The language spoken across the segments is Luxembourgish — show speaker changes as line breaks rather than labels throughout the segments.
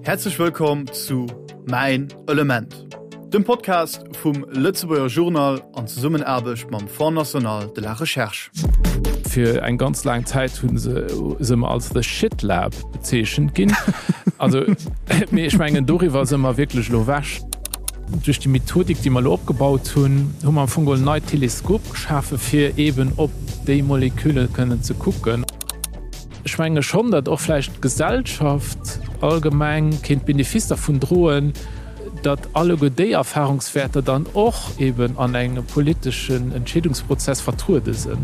Häerzlech wëllkomm zu Mäin Element, dem Podcast vum Lëtzebuerger Journal an Zesummenaarbecht mam Fonds National de la Recherche.
Fir eng ganz laang Zäit hu se se ëmmer als The Shit Lab bezeechent ginn. Also, mee ech mengen doriwwer si mer wierklech elo ewech. Duerch déi Methodik, déi mer elo opgebaut hunn, hu mer am Fong geholl en neit Teleskop geschafe fir eeben op déi Molekülle kënnen ze kucken. Ech menge schonn, datt och vläicht d'Gesellschaft allgemeng kéint Benefice dervun droen, datt alleguer déi Erfahrungswäerter dann och eeben an engem politeschen Entscheedungsprozess vertruede sënn.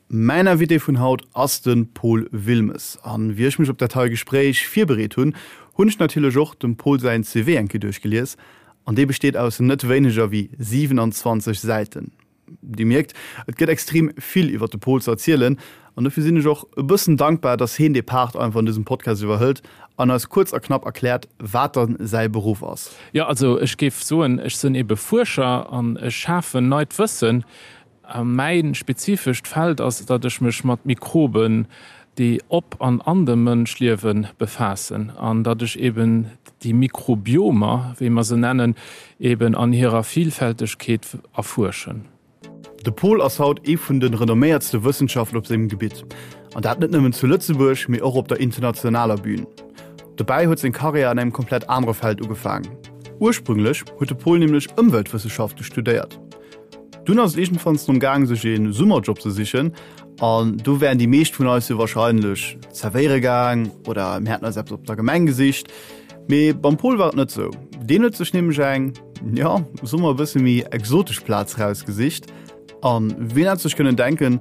Mäin Invité vun haut ass de Paul Wilmes. An wéi ech mech op dat hei Gespréich virbereet hunn, hunn ech natierlech och dem Paul säin CV eng Kéier duerchgelies. An dee besteet aus net wéineger wéi 27 Säiten. Dir mierkt, et gëtt extrem vill iwwer de Paul ze erzielen an dofir sinn ech och e bëssen dankbar, dass heen dee Part einfach an dësem Podcast iwwerhëlt an eis kuerz a knapp erkläert, wat dann säi Beruff ass.
Jo, also ech géif soen, ech sinn ebe Fuerscher an ech schafen neit Wëssen. A mäi spezifescht Feld ass, datt ech mech mat Mikroben, déi op an an dem Mënsch liewen, befaassen an datt ech eben déi Mikrobiomer, wéi mer se nennen, eben an hirer Vielfältegkeet erfuerschen.
De Paul ass haut ee vun de renomméiertste Wëssenschaftler op sengem Gebitt. An dat net nëmmen zu Lëtzebuerg, mee och op der internationaler Bühn. Dobäi huet seng Karriär an engem komplett anere Feld ugefaangen. Ursprünglech huet de Paul nämlech Ëmweltwësseschafte studéiert. Dunn ass et iergendwanns drëm gaang sech ee Summerjob ze sichen an do wären déi meescht vun eis jo wahrscheinlech zerwéiere gaang oder mir hätten eis eppes op der Gemeng gesicht. Mee beim Paul war et net sou. Deen huet sech nämlech eng, jo, soe mer e bësse méi exotesch Plaz rausgesicht. An wien hätt sech kënnen denken,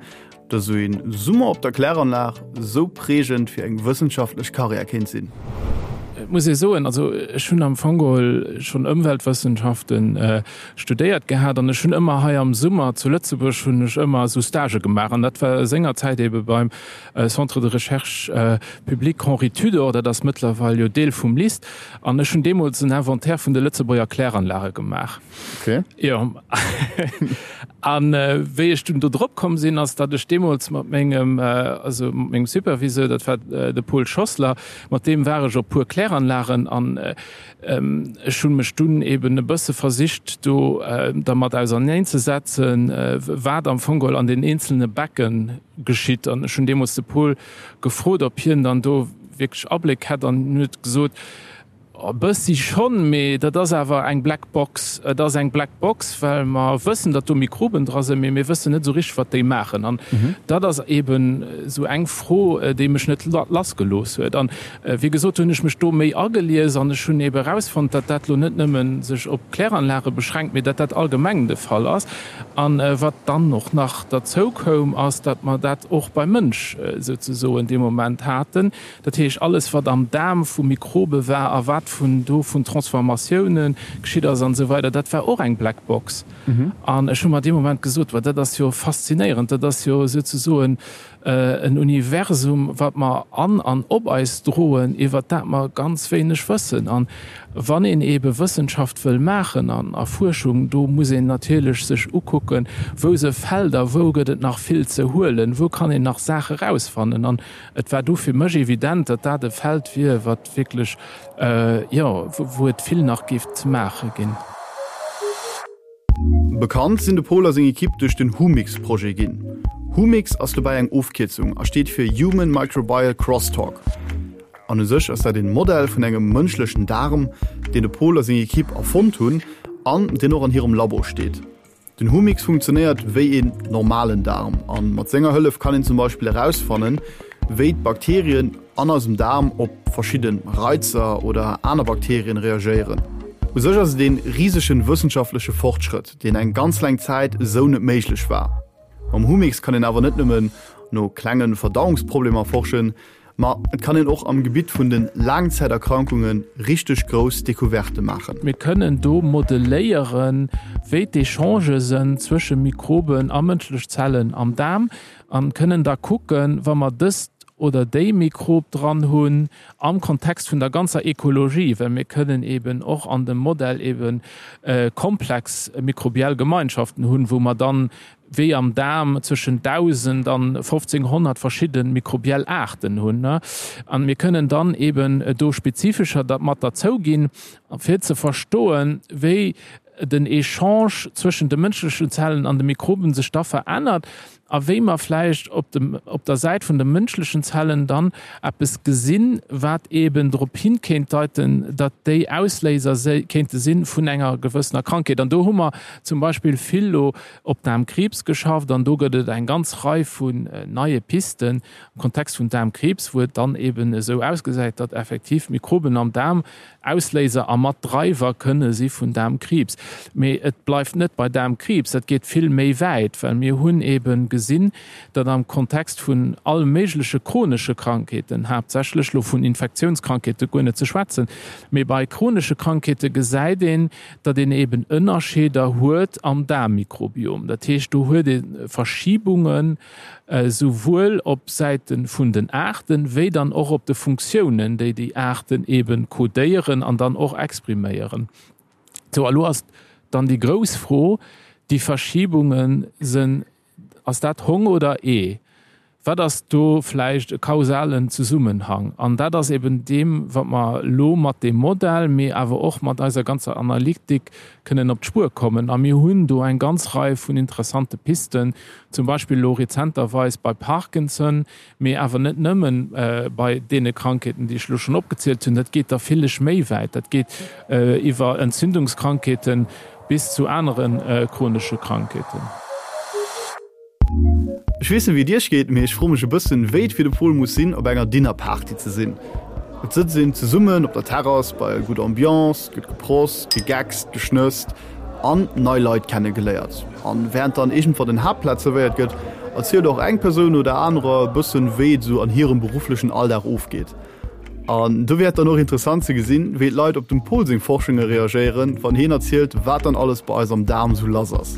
Dass esou een Summer op der Kläranlag esou prägend fir eng wëssenschaftlech Karriär kéint sinn.
Et muss ee soen, also ech hunn am Fong geholl schonn Ëmweltwëssenschaften studéiert gehat an ech hunn ëmmer hei am Summer zu Lëtzebuerg hunn ech ëmmer esou Stagë gemaach an dat war sengerzäit ebe beim Centre de recherche public Henri Tudor, dat ass mëttlerweil jo Deel vum LIST an ech hunn deemools en Inventaire vun de Lëtzebuerger Kläranlage gemaach.
Okay.
Jo. An wéi ech dunn do drop komm sinn, ass, datt ech deemools mat mengem, also mat mengem Superviseur, dat war de Paul Schossler, mat deem war ech op puer Kläranlagen an ech hu mech dunn eben e bësse versicht do dermat auserneenzesetzen, wat am Fong geholl an den eenzelne Becke geschitt. An ech hunn deemools de Paul gefrot, ob hien dann do wierklech Abléck hätt an hien huet gesot, E bëssi schonn, mee dat ass awer eng Black Box. Et ass eng Black Box, well mer wëssen, datt do Mikroben dra sinn, mee mir wëssen net esou richteg, wat déi maachen. An dat ass eeben esou eng Fro, déi mech net lassgelooss huet. An wéi gesot hunn ech mech do méi agelies an ech hunn eebe erausfonnt, datt dat elo net nëmme sech op Kläranlage beschränkt, mee datt dat allgemeng de Fall ass. An wat dann och nach derzou koum, ass, datt mer dat och beim Mënsch souzesoen dee Moment haten. Dat heescht, alles wat am Daarm vu Mikrobe war a wat vun do vun Transformatioune geschitt ass an esou weider, dat war och eng Black Box. An ech hu mer dee Moment gesot, Wa dat ass jo faszinéierend, dat ass jo souzesoen en Universum, wat mer an an op eis droen, iwwert dat mer ganz wéineg wëssen. An wann een eebe Wëssenschaft wëll maachen an a Fuerschung, do muss een natierlech sech ukucken, wou se Felder, wou gëtt et nach vill ze huelen, wou kann een nach Saache rausfannen. An Et war du fir mech evident, datt dat e Feld wier, wat wierklech, jo, wou et vill nach géif ze maache ginn.
Bekannt sinn de Paul a seng Ekipp duerch den Humix-Projet ginn. Humix ass dobäi eng Ofkierzung a steet fir Human Microbial Crosstalk. An u sech ass dat een Modell vun engem mënschlechen Daarm, deen de Paul a seng Ekipp erfonnt hunn an deen och an hirem Labo steet. Den Humix funktionéiert wéi een normalen Daarm an mat senger Hëllef kann een zum Beispill erausfannen, wéi d'Bakterien an eisem Daarm op verschidden Reizer oder aner Bakterien reagéieren. U sech ass et een risegen wëssenschaftleche Fortschrëtt, deen eng ganz laang Zäit esou net méiglech war. Mam Humix kann een awer net nëmmen no klengen Verdauungsproblemer forschen, Ma et kann een och am Gebitt vun de Laangzäiterkrankunge richteg grouss Decouverte maachen.
Mir kënnen do modelléieren, wéi d'Echangë sënn zwësche Mikroben a mënschlech Zellen am Daarm an kënnen da kucken, wa mer dëst. oder déi Mikrob dran hunn am Kontext vun der ganzer Ekologie, well mir kënnen eben och an dem Modell eben komplex mikrobiell Gemeinschaften hunn, wou mer dann wéi am Daarm zwëschen 1.000 an 1.500 verschidde mikrobiell Aarten hunn. An mir kënnen dann eben do spezifescher mat derzou ginn, fir ze verstoen, wéi den Echange zwëschen de mënschlechen Zellen an de Mikroben sech da verännert a wéi mer vläicht op dem, op der Säit vun de mënschlechen Zellen dann eppes gesinn, wat eeben drop hin kéint deiten, datt déi Ausléiser kéinte si vun enger gewëssener Krankheet. An do hu mer zum Beispill vill elo op Daarmkriibs geschafft an do gëtt et eng ganz Rei vun neie Pisten am Kontext vun Daarmkriibs, wou et dann eeben esou ausgesäit, datt effektiv Mikroben am Daarm Ausléiser a mat Dreiwer kënne si vun Daarmkriibs. Mee et bleift net bei Daarmkriibs, dat geet vill méi wäit, well mir hunn eebe gesinn, datt am Kontext vun all méigleche chronesche Krankheeten, haaptsächlech elo vun Infektiounskrankheete guer net ze schwätzen, mee bei chronesche Krankheete gesäit een, datt een eeben Ënnerscheeder huet am Daarmmikrobiom. Dat heescht, do huet ee Verschibungen, esouwuel op Säite vun den Aarten, wéi dann och op de Funktiounen, déi déi Aarten eebe codéieren an dann och expriméieren. Sou, a lo ass dann déi grouss Fro, déi Verschibunge sinn, ass dat Hong oder Ee? Wat ass do vläicht e kausalen Zesummenhang? An dat ass eben deem, wat mer elo mat deem Modell, mee awer och mat eiser ganzer Analytik kënnen op d'Spuer kommen. A mir hunn do eng ganz Rei vun interessante Pisten, zum Beispill elo rezenterweis bei Parkinson, mee awer net nëmmen bei deene Krankheeten, déi ech elo schonn opgezielt hunn. Dat geet da villech méi wäit. Dat geet iwwer Entzündungskrankheeten bis zu anere chronesche Krankheeten.
Ech weess net wéi et iech geet, mee ech froe mech e bëssen wéi et fir de Pol muss sinn op enger Dinnerparty ze sinn. Et sëtzt een zesummen op der Terrass bei gudder Ambiance, et gëtt geprost, gegeckst, geschnësst an nei Leit kenne geléiert. An während dann iergendwann den Haaptplat zerwéiert gëtt, erzielt och eng Persoun no der anerer e bëssen wéi et esou an hirem berufflechen Alldag ofgeet. An do wier et dann och interessant ze gesinn, wéi d'Leit op dem Pol seng Forschunge reagéieren, wann hien erzielt, wat dann alles bei eis am Daarm sou lass ass.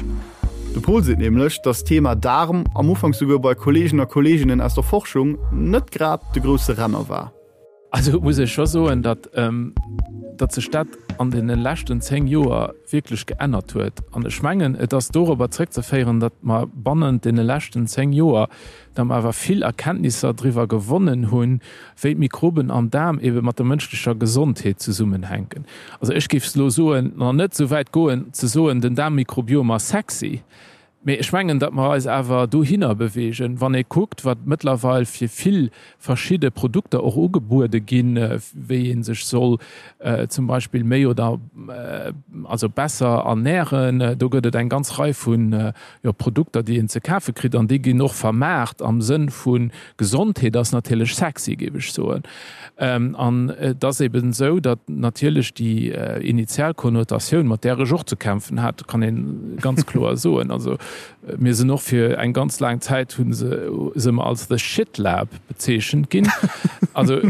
De Pol seet nämlech, dass d'Thema Daarm am Ufank souguer bei Kolleegen a Kolleeginnen aus der Forschung net grad de grousse Renner war.
Also muss ech scho soen, datt datt sech dat an deene leschten 10 Joer wierklech geännert huet. An ech mengen, et ass dorobber zréckzeféieren, datt mer bannent deene leschten 10 Joer datt mer awer vill Erkenntnisser driwwer gewonnen hunn, wéi d'Mikroben am Daarm ebe mat der mënschlecher Gesondheet zesummenhänken. Also ech géif elo soen, nach net esou wäit goen ze soen, den Daarmmikrobiom ass sexy, mee ech mengen, datt mer eis awer dohinner bewegen, wann ee kuckt, wat mëttlerweil fir vill verschidde Produkter och ugebuede ginn, wéi ee sech soll zum Beispill méi oder also besser ernähren. Do gëtt et eng ganz Rei vun jo, Produkter, déi een ze kafe kritt an déi ginn och vermaart am Sënn vu Gesondheet ass natierlech sexy, géif ech soen. An et ass eben esou, datt natierlech déi initial Konnotatioun, mat där ech och ze kämpfen hat, kann ee ganz kloer soen, also mir sinn och fir eng ganz laang Zäit hu se se mer als the shit lab bezeechent ginn. Also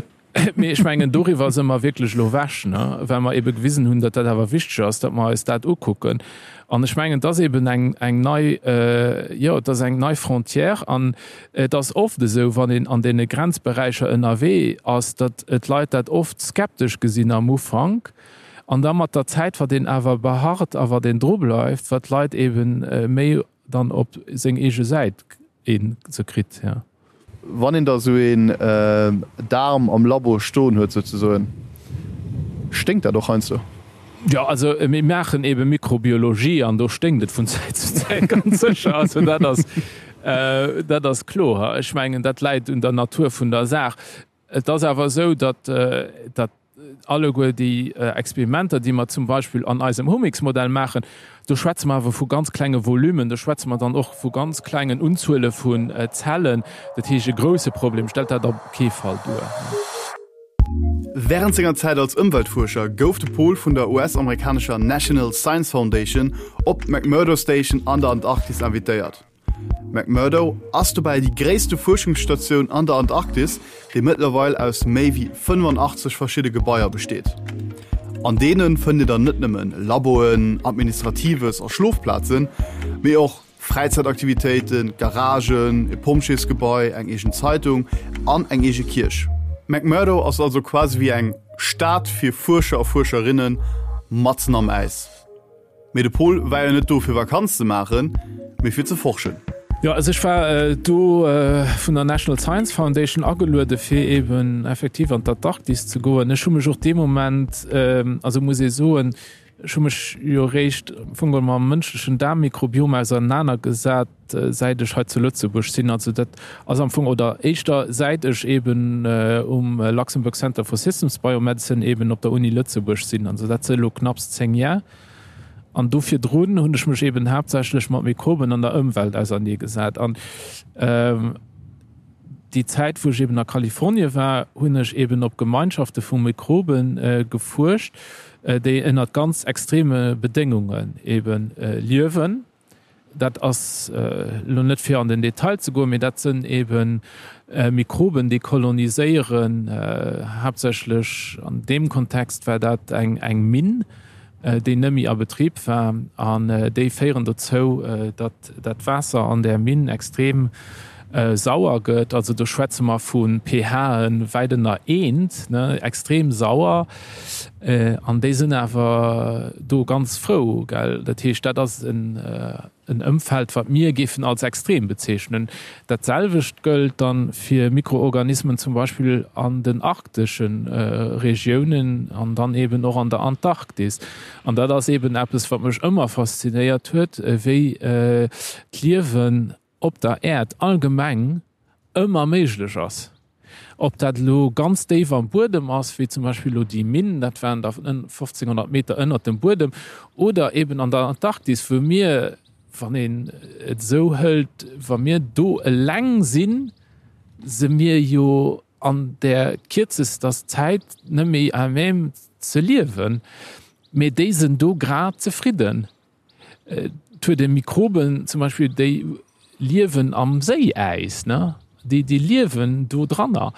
Mee ech mengen, doriwwer si mer wierklech elo ewech, ne, well mer ebe gewisen hunn, datt dat awer wichteg ass, datt mer eis dat ukucken. An ech mengen, et ass eben eng, eng nei, jo, et ass eng nei Frontière. An et ass oft esou, wann een an deene Grenzberäicher ënnerwee ass, datt d'Leit dat oft skeptesch gesinn am Ufank. An da mat der Zäit, wat een awer beharrt a wat een drubleift, wat d'Leit ebe méi dann op seng eege Säit een se kritt, ja.
Wann een da sou een Daarm am Labo stoen huet souzesoen, sténkt dat och heiansdo?
Jo, also mir maachen ebe Mikrobiologie an do sténkt et vun Zäit zu Zäit ganz sécher. Also dat ass, dat ass kloer. Ech mengen, dat läit un der Natur vun der Saach. Et ass awer esou, datt, datt alleguer déi Experimenter, déi mer zum Beispill an eisem Humix-Modell maachen, do schwätze mer awer vu ganz klenge Volumen, do schwätze mer dann och vu ganz klengen Unzuele vun Zellen. Dat heescht, e grouse Problem stellt dat op kee Fall duer.
Wärend senger Zäit als Ëmweltfuerscher gouf de Pol vun der US-amerikanescher National Science Foundation op d'McMurdo Station an der Antarktis invitéiert. McMurdo ass dobäi déi gréisste Fuerschungsstatioun an der Antarktis, déi mëttlerweil aus méi wéi 85 verschidde Gebaier besteet. An deene fënnt Dir dann net nëmmen Laboen, Administratives a Schlofplazen, mee och. Fräizäitaktivitéiten, Garagen, e Pompjeesgebai, eng eegen Zeitung an eng eege Kierch. McMurdo ass also quasi wéi eng Stad fir Fuerscher a Fuerscherinnen matzen am Äis. Mee de Pol war jo net do fir Vakanz ze maachen, mee fir ze forschen.
Jo, also ech war do vun der National Science Foundation ageluede fir eben effektiv an d'Antarktis ze goen. Ech hu mech och dee Moment, also muss ee soen, ech hu mech jo eréischt am Fong geholl mam mënschlechen Daarmmikrobiom ausernanergesat, säit ech hei zu Lëtzebuerg sinn. Also dat ass am Fong, oder éischter säit ech eben um Luxembourg Center for Systems Biomedicine eben op der Uni Lëtzebuerg sinn. Also dat si elo knapps 10 Jar. An do virdrun hunn ech mech eben haaptsächlech mat Mikroben an der Ëmwelt auserneegesat. An déi Zäit, wou ech eben a Kalifornie war, hunn ech eben op Gemeinschafte vu Mikrobe gefuerscht, déi ënnert ganz extreme Bedéngungen eben liewen. Dat ass elo net fir an den Detail ze goen, mee dat sënn ebe Mikroben, déi koloniséieren. Haaptsächlech an deem Kontext war dat eng eng Minn, déi net méi a Betrib war. An déi féieren dozou, datt dat Waasser an där Minn extrem sauer gëtt. Also do schwätze mer vu pHe wäit ënner eent, ne, extrem sauer. An déi sinn awer do ganz frou, gell. Dat heescht, dat ass en Ëmfeld, wat mir géifen als extrem bezeechnen. Dat selwecht gëllt da fir Mikroorganismen zum Beispill an den arktesche Regiounen an dann eeben och an der Antarktis. An dat ass eeben eppes, wat mech ëmmer faszinéiert huet, wéi d'Liewen op der Äerd allgemeng ëmmer méiglech ass. Ob dat elo ganz déif am Buedem ass, wéi zum Beispill elo déi Minn, dat waren da 1500 Meter ënnert dem Buedem, oder eben an der Antarktis, wou mir, wann een et esou hëlt, wa mir do eleng sinn, se mir jo an där kierzester Zäit net méi à même ze liewen, mee déi sinn do grad zefridden. Et huet ee Mikroben zum Beispill, déi liewen am Séiäis, ne? Déi, déi liewen do dranner,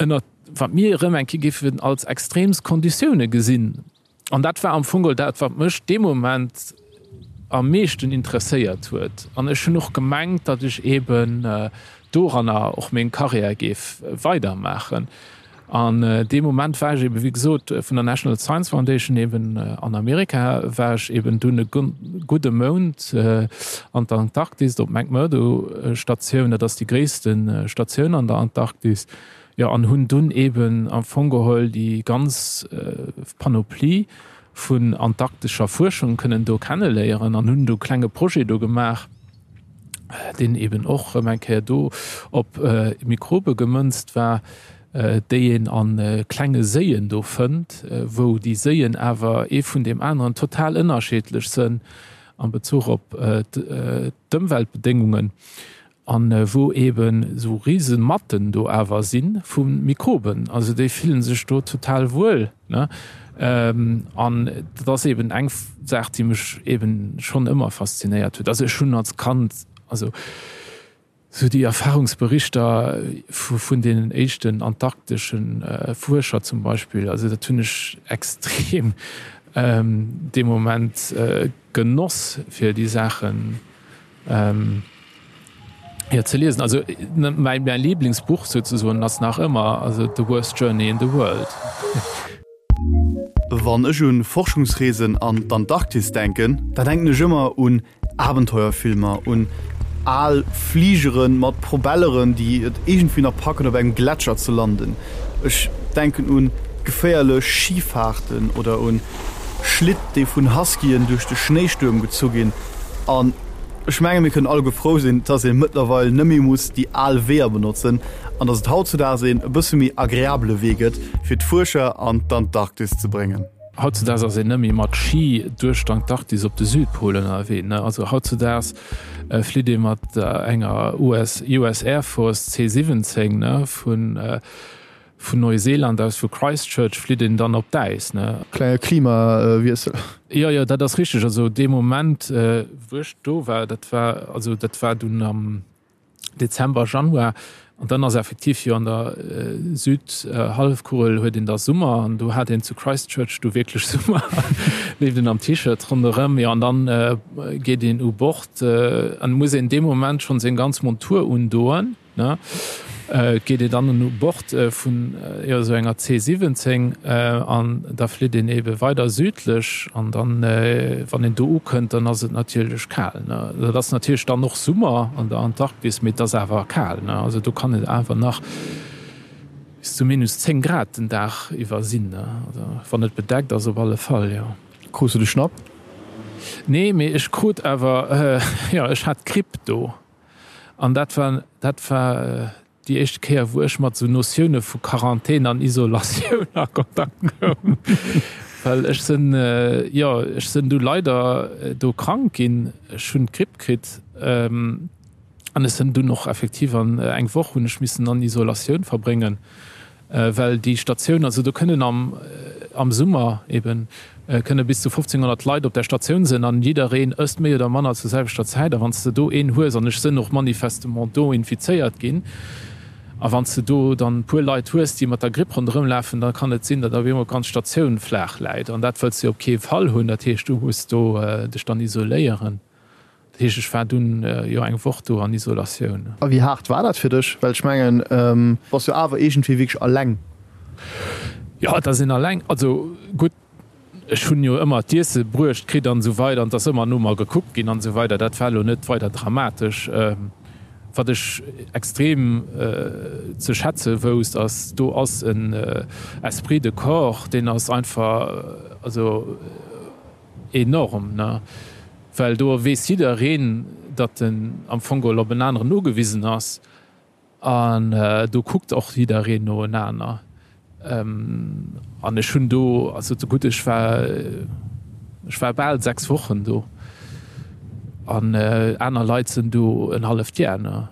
ënner wat mir erëm eng Kéier géifen als extreemst Konditioune gesinn. An dat war am Fong geholl dat, wat mech dee Moment am meeschten interesséiert huet. An ech hunn och gemengt, datt ech eeben doranner och meng Karriär géif weidermaachen. An dee Moment war ech eben, wéi gesot, vun der National Science Foundation eben an Amerika, war ech eben dunn e gudde Mount an der Antarktis op d'McMurdo Statioun, dat ass déi gréisste Statioun an der Antarktis, jo, an hunn dunn eben am Fong geholl déi ganz Panoplie vun antarktescher Fuerschung kënnen do kenneléieren an hunn do e klenge Projet do gemaach. deen eben och erëm eng Kéier do op Mikrobe gemënzt war, déi een a klenge Séien do fënnt, wou déi Séien awer ee vun deem aneren total ënnerscheedlech sënn am Bezuch op d'Ëmweltbedéngungen an wou eben esou rise Matten do awer si vu Mikroben. Also déi fillen sech do total wuel. Ne? An dat ass eben eng Saach, déi mech eben schonn ëmmer faszinéiert huet. Also ech hunn als Kand, also sou déi Erfahrungsberichter vun deenen éischten antarktesche Fuerscher zum Beispill, also dat hunn ech extrem dee Moment genoss, fir déi Saachen Jo, ze liesen. Also mäi mäi Lieblingsbuch souzesoen ass nach ëmmer also The Worst Journey in the World.
Wann ech un Forschungsreesen an d'Antarktis denken, da denken ech ëmmer un Abenteuerfilmer, un al Fligeren mat Probelleren, déi et iergendwéi nach packen op engem Gletscher ze landen. Ech denken un geféierlech Schifaarten oder un Schlitt, déi vun Huskyen duerch de Schnéistuerm gezu ginn. An ech menge mir kënnen alleguer frou sinn, dass ee mëttlerweil net méi muss déi al Weeër benotzen an dass et hautzudaags een e bësse méi agreabele Wee gëtt, fir d'Fuerscher an d'Antarktis ze bréngen.
Hautzudaags ass een net méi mat Ski duerch d'Antarktis op de Südpol ënnerwee, ne? Also hautzudaags flitt ee mat enger US, US Air Force C-17, ne, vun Vun Neuseeland aus, vu Christchurch, flitt een dann op d'Äis, ne?
Klenge Klimawiessel.
Jo, jo, dat ass richteg. Also dee Moment, wou ech do war, dat war, also dat war dunn am Dezember, Januar, An dann ass effektiv jo an der Südhallefkugel huet een da Summer an do hat een zu Christchurch du wierklech Summer, leeft een am T-Shirt ronderëm. Jo an dann geet een u Bord an muss een dee Moment schonn seng ganz Montur undoen. Ne, et geet ee dann u Bord vun jo esou enger C 17 an da flitt een ebe weider südlech an dann, wann een do ukënnt, dann ass et natierlech kal. Ne, dat ass natierlech dann och Summer an der Antarktis, mee et ass awer kal. Ne, also do kann et awer nach bis zu minus 10 Grad den Dag iwwer sinn, ne, also wann et bedeckt ass op alle Fall, jo.
Krus du de Schnapp?
Nee, mee ech krut awer, jo, ech hat d'Gripp do. An dat war, dat war déi éischte Kéier, wou ech mat esou Notioune vu Quarantän an Isolatioun a Kontakt koum. Well ech sinn, jo, ech sinn du leider do krank ginn. Ech hunn d'Gripp kritt an ech sinn dunn och effektiv an eng Woch hunn ech missen an Isolatioun verbréngen. Well déi Statioun, also do kënnen am am Summer eben kënne bis zu 1.500 Leit op där Statioun sinn an jiddereen ësst méi oder manner zur selwechter Zäit. A wann s de do een hues, an ech sinn och manifestement do infizéiert ginn, a wann s de do dann e puer Leit hues, déi mat der Gripp ronderëm lafen, da kann et sinn, datt op eemol d'ganz Statioun flaach läit. An dat wëlls de op kee Fall hunn. Dat heescht, du muss do dech dann isoléieren. Dat heescht, ech war dunn jo eng Woch do an Isolatioun.
A wéi haart war dat fir dech? Well ech mengen, bass jo awer iergendwéi wierklech alleng.
Jo, et ass een alleng. Also gutt, ech hunn jo ëmmer d'Iesse bruecht kritt an esou weider an et ass ëmmer no mer gekuckt ginn an esou weider. Dat war elo net weider dramatesch. Wat ech extrem ze schätze wousst, ass, do ass en Esprit de corps, deen ass einfach, also enorm, ne? Well do weess jiddereen, datt en am Fong geholl op en aneren ugewisen ass an do kuckt och jiddereen no enaner. An ech hunn do, also gutt, ech war, ech war bal 6 Wochen do an aner Leit sinn do en halleft Jar, ne?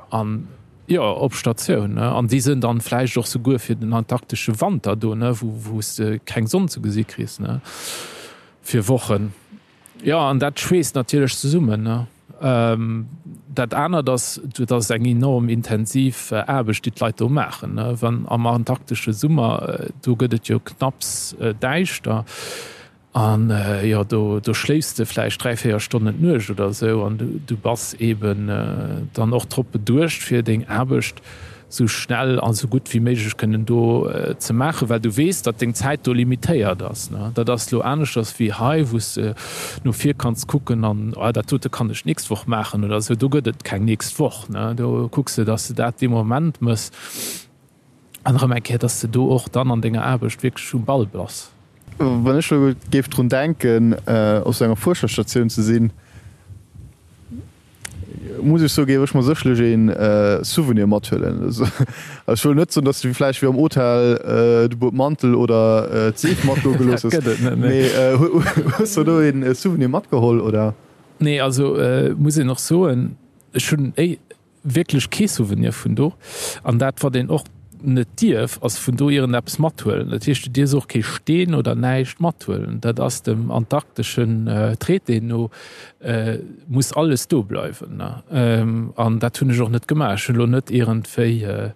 An, jo, op Statioun, ne? An déi sinn dann vläicht och souguer fir den antarktesche Wanter do, ne, wou, wou s de keng Sonn ze gesi kriss, ne? Fir Wochen. Jo, an dat schweesst natierlech zesummen, ne? Dat anert ass, dat ass eng enorm intensiv Aarbecht, déi d'Leit do maachen, ne? Wann am antarktesche Summer, do gëtt et jo knapps däischter an, jo, do, do schléifs de vläicht 3, 4 Stonnen d'Nuecht oder esou an du bass eeben dann och drop beduecht, fir deng Aarbecht sou schnell a sou gutt wéi méiglech kënnen do ze maachen, well du weess, datt deng Zäit do limitéiert ass. Dat ass elo aneschters wéi hei, wou s de no vir kanns kucken an, oh, dat dote kann ech d'nächst Woch maachen oder esou. Do gëtt et keng nächst Woch. Do kucks de, datt s de dat dee Moment méchs an erëm eng Kéier, datt s de do och dann an denger Aarbecht wierklech um Ball bass.
Wann ech elo géif drun denken, op sou enger Fuerscherstatioun ze sinn, Muss ech soen, géif ech mer sécherlech een Souvenir mathuelen. Ech wëll net soen, dass du vläicht wéi am Hotel de Bueb Mantel oder d'Seef mat do gelooss hues, mee hues du do een Souvenir matgeholl oder?
Nee, also muss een och soen, ech hunn wierklech kee Souvenir vun do. An dat wat een och net dierf, ass vun do iergendeppes mathuelen. Dat heescht, du dierfs och kee Steen oder näischt mathuelen. Dat ass dem antarkteschen Traité no, muss alles do bleiwen. An dat hunn ech och net gemaach. Ech hunn elo net iergendwéi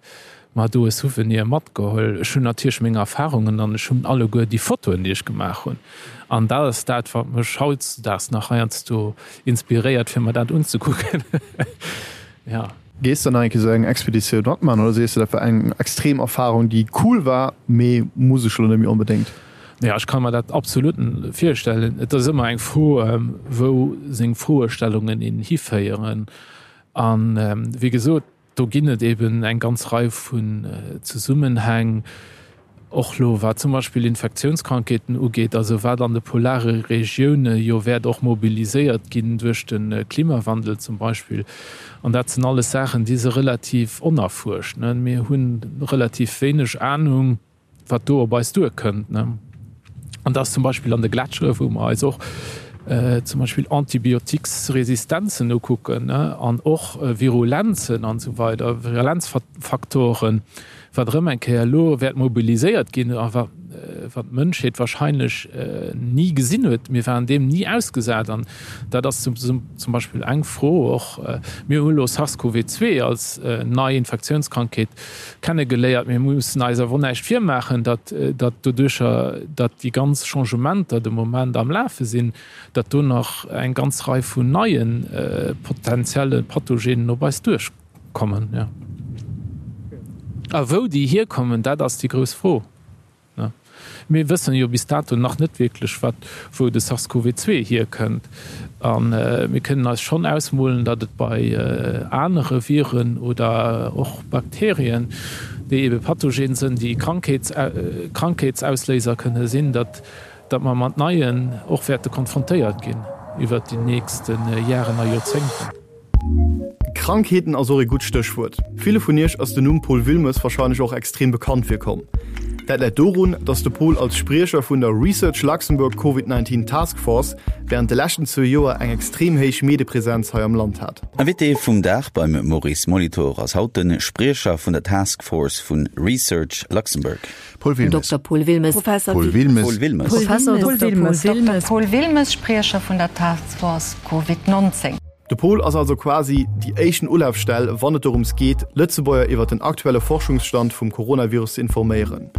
mer do e Souvenir matgeholl. Ech hunn natierlech meng Erfarungen an ech hunn alleguer déi Fotoen, déi ech gemaach hunn. An dat ass dat, wat mech hautdesdaags nach heiansdo inspiréiert, fir mer dat unzekucken.
Ja. Gees de nach eng Kéier esou eng Expeditioun matman oder sees de, dat war eng extrem Erfarung, déi cool war, mee muss ech elo net méi onbedéngt?
Jo, ech ka mer dat absolut virstellen. Et ass ëmmer eng Fro, wou seng Froestellungen een hiféieren. An wéi gesot, do ginn et eben eng ganz Rei vun Zesummenhäng, och lo wat zum Beispill Infektiounskrankheeten ugeet, also wat an de polare Regioune jo wäert och mobiliséiert ginn duerch de Klimawandel zum Beispill. An dat sinn alles Saachen, déi si relativ onerfuerscht. Mir hu relativ wéineg Anung, wat do op eis duerkënnt. An dat ass zum Beispill an de Gletschere, wou mer eis och zum Beispill Antibiotiquesresistenzen ukucken an och Virulenzen an esou weider, Virulenzfaktoren, wat erëm eng Kéier elo wäert mobiliséiert ginn a. wat d'Mënschheet wahrscheinlech ni gesinn huet. Mir waren deem ni ausgesat an dat ass zum Beispill eng Fro och. Mir hu lo SARS-CoV-2 als nei Infektiounskrankheet kennegeléiert. Mir mussen eis awer och näischt virmaachen, datt doduercher, datt déi ganz Changementer de Moment am Lafe sinn, datt do nach eng ganz Rei vun neie potenzielle Pathogenen op eis duerchkommen. Jo. A wou déi hierkommen, dat ass déi grouss Fro. Mir wëssen jo bis dato nach net wierklech, wat, wou de SARS-CoV-2 hierkënnt. A mir kënnen eis schonn ausmolen, datt et bei anere Viren oder och Bakterien, déi ebe pathogen sënn, déi Krankheetsausléiser kënne sinn, datt datt mer mat neien och wäerte konfrontéiert ginn iwwert déi nächste Jaren a Joerzéngten.
Krankheeten ass och ee gutt Stéchwuert. Ville vun iech ass den Numm Paul Wilmes warscheinlech och extrem bekannt virkomm. Dat läit dorun, datt de Paul als Spriecher vun der Research Luxembourg Covid 19 Task Force wärend de leschten zwou Joer eng extrem héich Medepresenz hei am Land hat.
Invité vum Dag beim Maurice Molitor ass haut de Spriecher vun der Task Force vu Research Luxembourg.
Paul Wilmes.
Dokter Paul Wilmes.
Professor Paul Wilmes.
Paul Wilmes.
Professor
Paul
Dokter
Wilmes.
Paul Wilmes.
Paul Wilmes, Spriecher vun der Task Force Covid 19.
De Paul ass also quasi déi éischten Ulafstell, wann et dorëms geet, Lëtzebuerger iwwer den aktuelle Forschungsstand vum Coronavirus ze informéieren.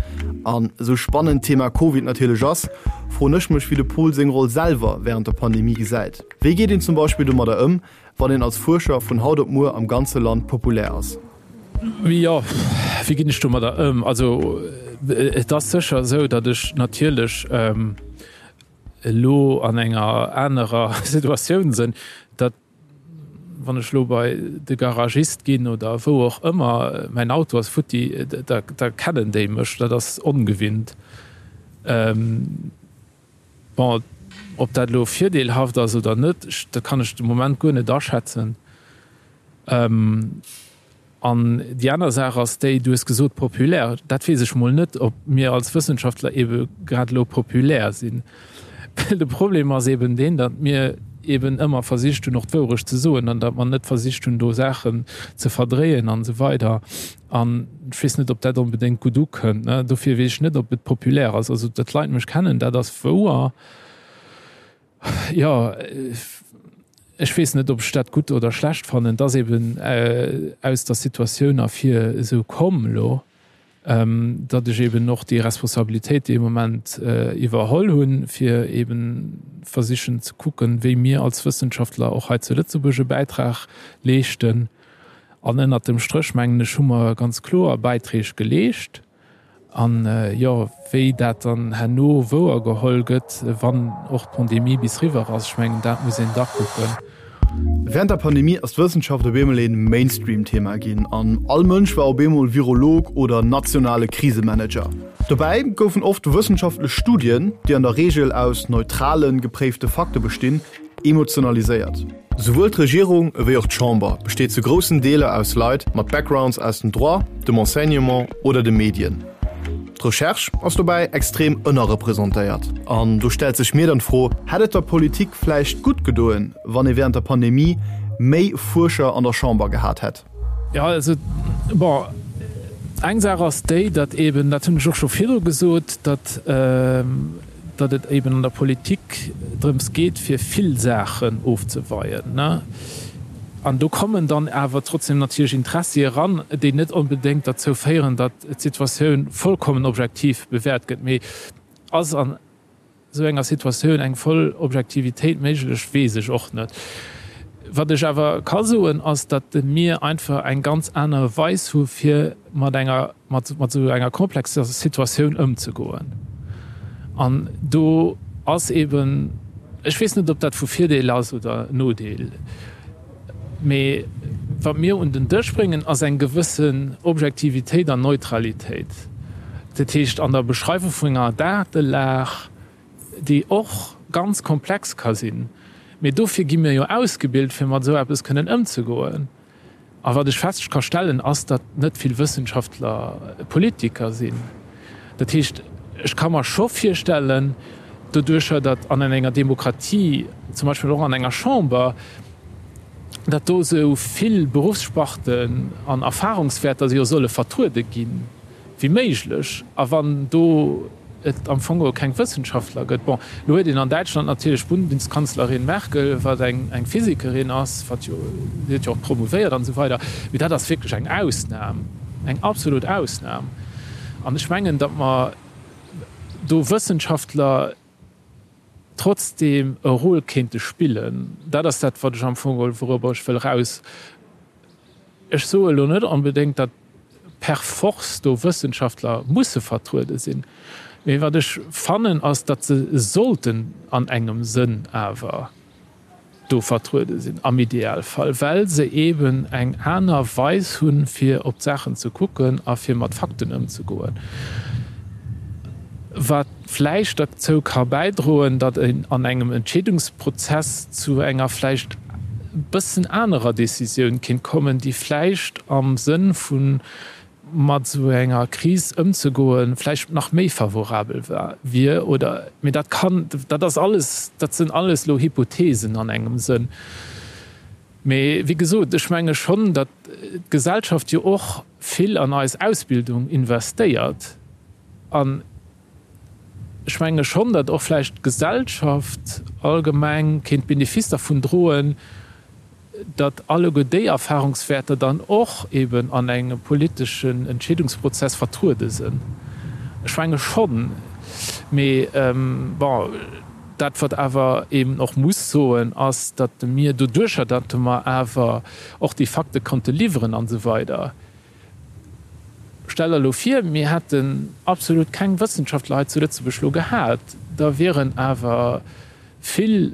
An esou spannend d'Thema Covid natierlech ass, froen ech mech, wéi de Paul seng Roll selwer wärend der Pandemie gesäit. Wéi geet een zum Beispill domadder ëm, wann een als Fuerscher vun haut op muer am ganze Land populär ass?
Jo, wéi ginn ech domadder ëm? Also et ass sécher esou, datt ech natierlech elo an enger anerer Situatioun sinn, datt wann ech elo bei de Garagist ginn oder wou och ëmmer, mäin Auto ass futti, da kennen déi mech. Dat ass ongewinnt. Bon, ob dat elo virdeelhaft ass oder net, dat kann ech de Moment guer net aschätzen. An déi aner Saach ass déi, du hues gesot populär, dat weess ech mol net, ob mir als Wëssenschaftler eebe grad elo populär sinn. Well de Problem ass eeben deen, datt mir eeben ëmmer versicht hunn och d'Wourecht ze soen an datt mer net versicht hunn do Saachen ze verdréien an esou weider. An ech weess net, ob dat onbedéngt gutt ukënnt. Dofir weess ech net, ob et populär ass. Also datt d'Leit mech kennen, dat ass wouer. Jo, ech weess net, ob ech dat gutt oder schlecht fannen. Et ass eben aus der Situatioun ervir esou komm elo, datt ech eben och déi Responsabilitéit dee Moment iwwerholl hunn, fir eben versichen ze kucken, wéi mir als Wëssenschaftler och hei zu Lëtzebuerg e Bäitrag leeschten. An ënnert dem Stréch, mengen ech, hu mer ganz kloer Bäiträg geleescht. An, jo, wéi dat dann herno wouer geholl gëtt, wann och d'Pandemie bis riwwer ass, ech mengen, dat muss een da kucken.
Wärend der Pandemie ass d'Wëssenschaft op eemol een Mainstream-Thema ginn an all Mënsch war op eemol Virolog oder nationale Krisemanager. Dobäi goufen oft wëssenschaftlech Studien, déi an der Reegel aus neutralen, gepréifte Fakte bestinn, Emotionaliséiert. Souwuel d'Regierung ewéi och d'Chamber besteet zu groussen Deeler aus Leit mat Backgrounds aus dem Droit, dem Enseignement oder de Medien. D'Recherche ass dobäi extrem ënnerrepresentéiert. An do stellt sech mir dann d'Fro, Hätt et der Politik vläicht gutt gedoen, wann ee wärend der Pandemie méi Fuerscher an der Chamber gehat hätt?
Jo, also, bon, eng Saach ass déi, datt eeben, dat hunn ech och scho virdru gesot, datt, datt et eeben an der Politik drëms geet, fir vill Saachen ofzeweien, ne? An do kommen dann awer trotzdem natierlech Interessi eran, déi net onbedéngt derzou féieren, datt d'Situatioun vollkommen objektiv bewäert gëtt. Mee ass an esou enger Situatioun eng voll Objektivitéit méiglech, weess ech och net. Wat ech awer ka soen, ass, datt mir einfach eng ganz aner Weis hu fir mat enger, mat esou enger komplexer Situatioun ëmzegoen. An do ass eeben, ech weess net, ob dat vu Virdeel ass oder Nodeel, mee wat mir un den Dësch bréngen, ass eng gewëssen Objektivitéit an Neutralitéit. Dat heescht, an der Beschreiwung vun enger Datelag, déi och ganz komplex ka sinn, mee dofir gi mir jo ausgebilt, fir mat esou eppes kënnen ëmzegoen. A wat ech fest ka stellen, ass, datt net vill Wëssenschaftler Politiker sinn. Dat heescht, ech ka mer scho virstellen, doduercher datt an enger Demokratie, zum Beispill och an enger Chamber, datt do esou vill Beruffssparten an Erfahrungswäerter jo solle vertruede ginn wéi méiglech. A wann do. et am Fong geholl keng Wëssenschaftler gëtt. Bon, elo huet een an Däitschland natierlech d'Bundeskanzlerin Merkel, wat eng eng Physikerin ass, wat jo, si huet jo och promouvéiert an esou weider, mee dat ass wierklech eng Ausnam, eng absolut Ausnam. An ech mengen, datt mer do Wëssenschaftler trotzdeem e Rôle kéinte spillen. Dat ass dat, wat ech am Fong geholl, wourobber ech wëll eraus. Ech soe elo net onbedéngt, datt per force do Wëssenschaftler musse vertruede sinn, mee wat ech fannen, ass, datt se sollten an engem Sënn awer do vertruede sinn, am Idealfall, well se eeben eng aner Weis hunn, fir op d'Saachen ze kucken a fir mat Fakten ëmzegoen, wat vläicht derzou ka bäidroen, datt een an engem Entscheedungsprozess zu enger vläicht e bëssen anerer Decisioun kéint kommen, déi vläicht am Sënn vu mat esou enger Kris ëmzegoen, vläicht nach méi favorabel wier oder, mee dat kann, dat ass alles, dat sinn alles elo Hypothesen an engem Sënn. Mee wéi gesot, ech menge schonn, datt d'Gesellschaft jo och vill an eis Ausbildung investéiert an ech menge schonn, datt och vläicht d'Gesellschaft allgemeng kéint Benefice dervun droen, datt alleguer déi Erfahrungswäerter dann och eben an engem politeschen Entscheedungsprozess vertruede sinn. Ech menge schonn. Mee bon, dat wat awer eben och muss soen, ass, datt mir doduercher, datt mer awer och déi Fakte konnte liwweren an esou weider, Stell der elo vir, mir hätten absolut keng Wëssenschaftler hei zu Lëtzebuerg elo gehat, da wieren awer vill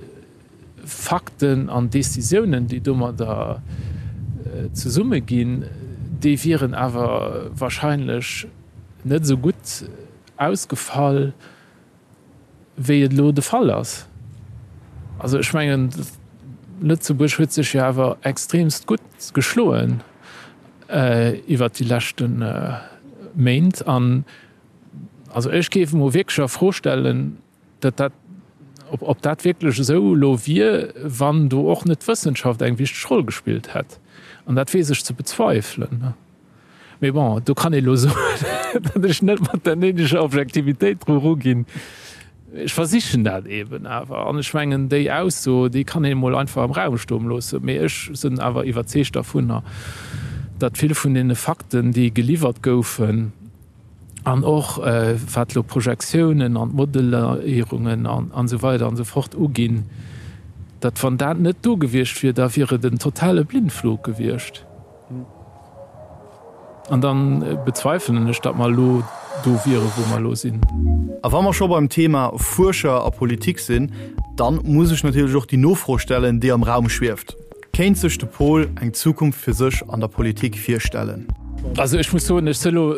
Fakten an Décisiounen, déi domadder zesumme ginn, déi wieren awer wahrscheinlech net esou gutt ausgefall, wéi et elo de Fall ass. Also ech mengen, Lëtzebuerg huet sech jo awer extremst gutt geschloen iwwert déi leschte Méint. An also ech géif emol wierklech a Fro stellen, datt dat, ob dat wierklech esou elo wier, wann do och net d'Wëssenschaft eng wichteg Roll gespillt hätt. An dat weess ech ze bezweifelen. Mee bon, do kann ee lo soen, datt ech net mat der néideger Objektivitéit dru ruginn. Ech versichen dat eeben awer. An ech mengen, déi Ausso, déi kann een emol einfach am Raum stoen loossen. Mee ech sinn awer iwwerzeegt dervunner, datt vill vun deene Fakten, déi geliwwert goufen, an och wat elo d'Projektiounen an d'Modelléierungen an esou weider an esou fort uginn, datt wann dat net do gewiescht wier, da wier et en totale Blindflug gewiescht. An da bezweifelen ech, datt mer elo do wieren, wou mer elo sinn.
A wa mer scho beim Thema Fuerscher a Politik sinn, dann muss ech natierlech och déi Nofro stellen, déi am Raum schwieft, Kéint sech de Pol eng Zukunft fir sech an der Politik virstellen?
Also ech muss soen, ech si elo,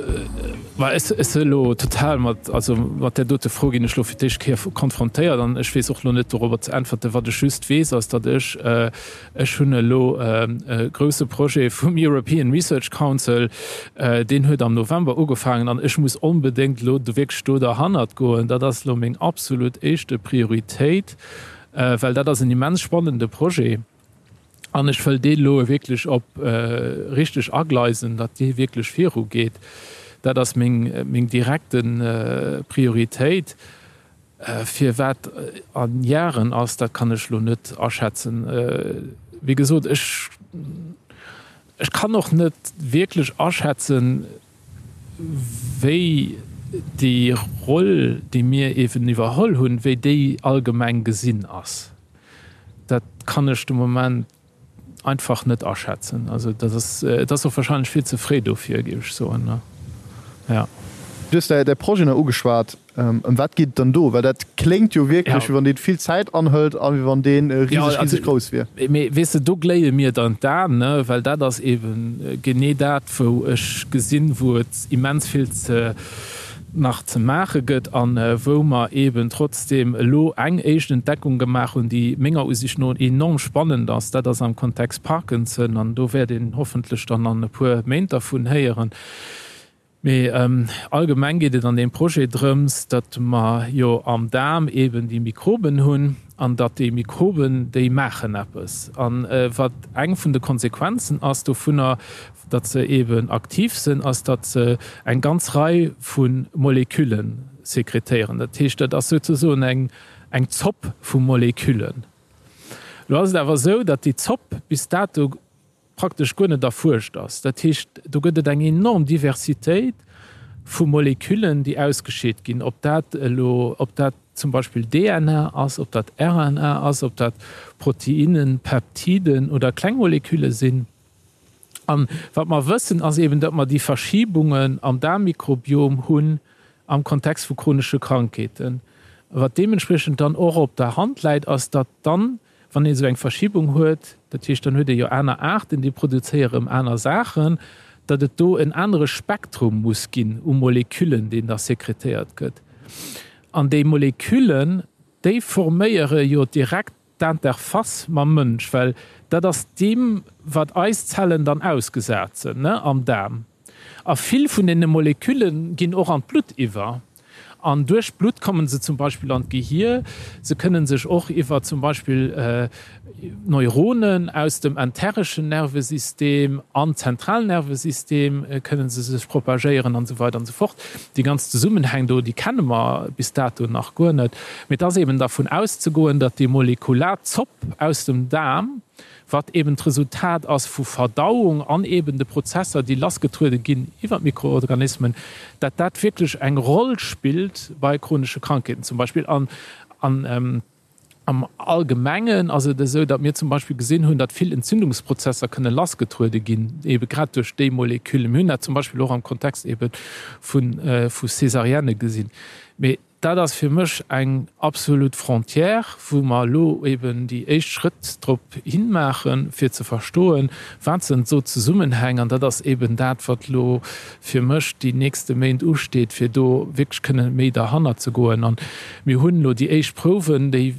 ma ech si elo total mat, also mat där dote Fro ginn ech elo fir d'éischt Kéier konfrontéiert an ech weess och elo net dorobber ze äntwerten. Wat ech just weess, ass, datt ech Ech hunn elo e grouse Projet vum European Research Council, deen huet am November ugefaangen an ech muss onbedéngt elo do wierklech do derhannert goen. Dat ass elo meng absolut éischte Prioritéit, well dat ass en immens spannende Projet an ech wëll dee elo wierklech op richteg agleisen, datt dee wierklech virugeet. Dat ass meng, meng direkte Prioritéit. Firwat a Jaren ass, dat kann ech elo net aschätzen. Wéi gesot, ech, ech kann och net wierklech aschätzen, wéi déi Roll, déi mir eeben iwwerholl hunn, wéi déi allgemeng gesinn ass. Dat kann ech de Moment einfach net aschätzen. Also dat ass, et ass och wahrscheinlech vill ze fréi dofir, géif ech soen, jo.
Du hues däi Projet nach ugeschwat. Ëm wat geet et dann do? Well dat kléngt jo wierklech, wéi wann dee vill Zäit anhëlt a wéi wann dee riseg, riseg grouss wier.
Mee weess de, do gléie mir dann d'Aen, ne, well dat ass eeben genee dat, wou ech gesinn, wou et immens vill ze nach ze maache gëtt a wou mer eeben trotzdeem elo eng éischt Entdeckung gemaach hunn, déi menger Usicht no enorm spannend ass. Dat ass am Kontext Parkinson an do wäert een hoffentlech dann an e puer Méint dervun héieren. Mee allgemeng geet et an deem Projet drëms, datt mer jo am Daarm eeben déi Mikroben hunn an datt déi Mikroben, déi maachen eppes. A wat eng vun de Konsequenzen ass dovunner, datt se eeben aktiv sinn, ass, datt se eng ganz Rei vu Molekülle. sekretéieren. Dat heescht, dat ass souzesoen eng, eng Zopp vu Moleküllen. Elo ass et awer esou, datt déi Zopp bis dato praktesch guer net erfuerscht ass. Dat heescht, do gëtt et eng enorm Diversitéit vu Moleküllen, déi ausgescheet ginn, ob dat elo, ob dat zum Beispill DNA ass, ob dat RNA ass, ob dat Proteinnen, Peptiden oder kleng Molekülle sinn. An wat mer wëssen, ass eben, datt mer déi Verschibungen am Daarmmikrobiom hunn am Kontext vu chronesche Krankheeten. Wat deementspriechend dann och op der Hand läit, ass, datt dann, wann een esou eng Verschibung huet, dat heescht, dann huet ee jo aner Aarten, déi produzéiere rëm aner Saachen, datt et do en anere Spektrum muss ginn u Moleküllen, deen da sekretéiert gëtt. An déi Moleküllen, déi forméiere jo direkt d'Interface mam Mënsch, well dat ass deem, wat eis Zellen dann ausgesat sinn, ne, am Daarm. A vill vun deene Molekülle ginn och an d'Blutt iwwer. An duerch d'Blutt kommen se zum Beispill an d'Gehier. Se kënnen sech och iwwer zum Beispill Neuronen aus dem entereschen Nervesystem an d'Zentralnervesystem kënnen se sech propagéieren an esou weider an esou fort. Déi ganz Zesummenhäng do, déi kenne mer bis dato nach guer net. Mee et ass eben dervun auszegoen, datt déi molekular Zopp aus dem Daarm, wat eben d'Resultat ass vu Verdauung an eben de Prozesser, déi lassgetruede ginn iwwer d'Mikroorganismen, datt dat wierklech eng Roll spillt bei chronesche Krankheeten zum Beispill. An am Allgemengen ass et esou, datt mir zum Beispill gesinn hunn, datt vill Entzündungsprozesser kënne lassgetruede ginn, ebe grad duerch déi Moleküllen. Mir hunn dat zum Beispill och am Kontext ebe vu Césarienne gesinn. Mee Dat ass fir mech eng absolut Frontière, wou mer elo eben déi éischt Schrëtt drop hinmaachen, fir ze verstoen, wat sinn esou Zesummenhäng. An dat ass eben dat, wat elo fir mech déi nächste Méint usteet, fir do wierklech kënne méi derhannert ze goen. An mir hunn elo déi éischt Prouwen, déi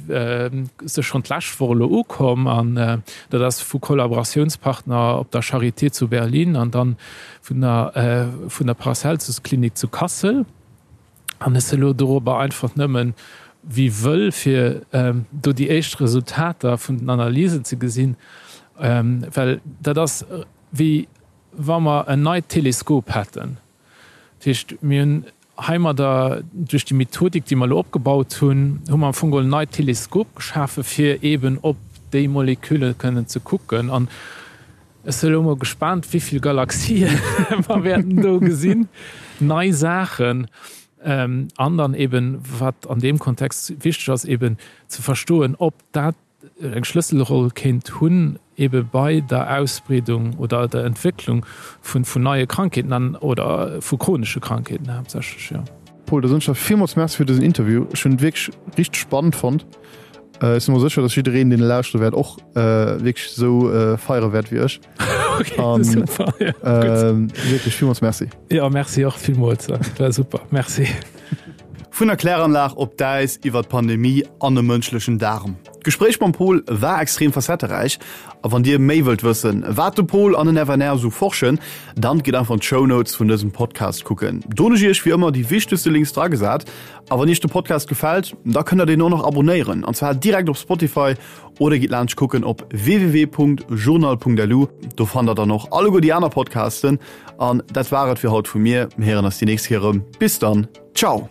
si schonn d'lescht Woch elo ukomm. An dat ass vu Kollaboratiounspartner op der Charité zu Berlin an dann vun der vun der Paracelsus-Klinik zu Kassel. An ech si elo dorobber einfach nëmmen wéi wëll, fir do déi éischt Resultater vun den Analysen ze gesinn, well dat ass wéi wa mer en neit Teleskop hätten. Dat heescht, mir hunn heimadder duerch déi Methodik, déi mer elo opgebaut hunn, hu mer am Fong geholl en neit Teleskop geschafe fir eeben op déi Molekülle kënnen ze kucken. An Ech si elo mol gespaant wéivill Galaxien mer wäerten do gesinn, nei Saachen an dann eben, wat an deem Kontext wichteg ass, eben ze verstoen, ob dat eng Schlësselroll kéint hunn ebe bei der Ausbreedung oder der Entwécklung vun neie Krankheeten an oder vu chronesche Krankheeten haaptsächlech, jo.
Paul, da soen ech der villmools Merci fir dësen Interview. Ech hunn et wierklech richteg spannend fonnt. Ech si mer sécher, dass jiddereen, deen e lauschtere wäert, och wierklech esou feiere wäert wéi ech.
Okay, An, super. Ja,
ähm, wierklech villmools Merci.
Ja, merci och villmools. Dat war super. Merci.
Vun der Kläranlag op d'Äis iwwer d'Pandemie an e mënschlechen Daarm. D'Gespréich mam Paul war extrem facetteräich a wann Dir méi wëllt wëssen, wat de Paul an den FNR esou forschen, dann gitt einfach an d'Shownotes vun dësem Podcast kucken. Do hunn ech Iech wéi ëmmer déi wichtegste Links dragesat. A wann Iech de Podcast gefält, da kënnt der deen och nach abonéieren, an zwar direkt op Spotify oder gitt laanscht kucken op www.journal.lu. Do fannt der dann och alleguer déi aner Podcasten. An dat war et fir haut vu mir. Mir héieren eis déi nächst Kéier erëm. Bis dann, ciao!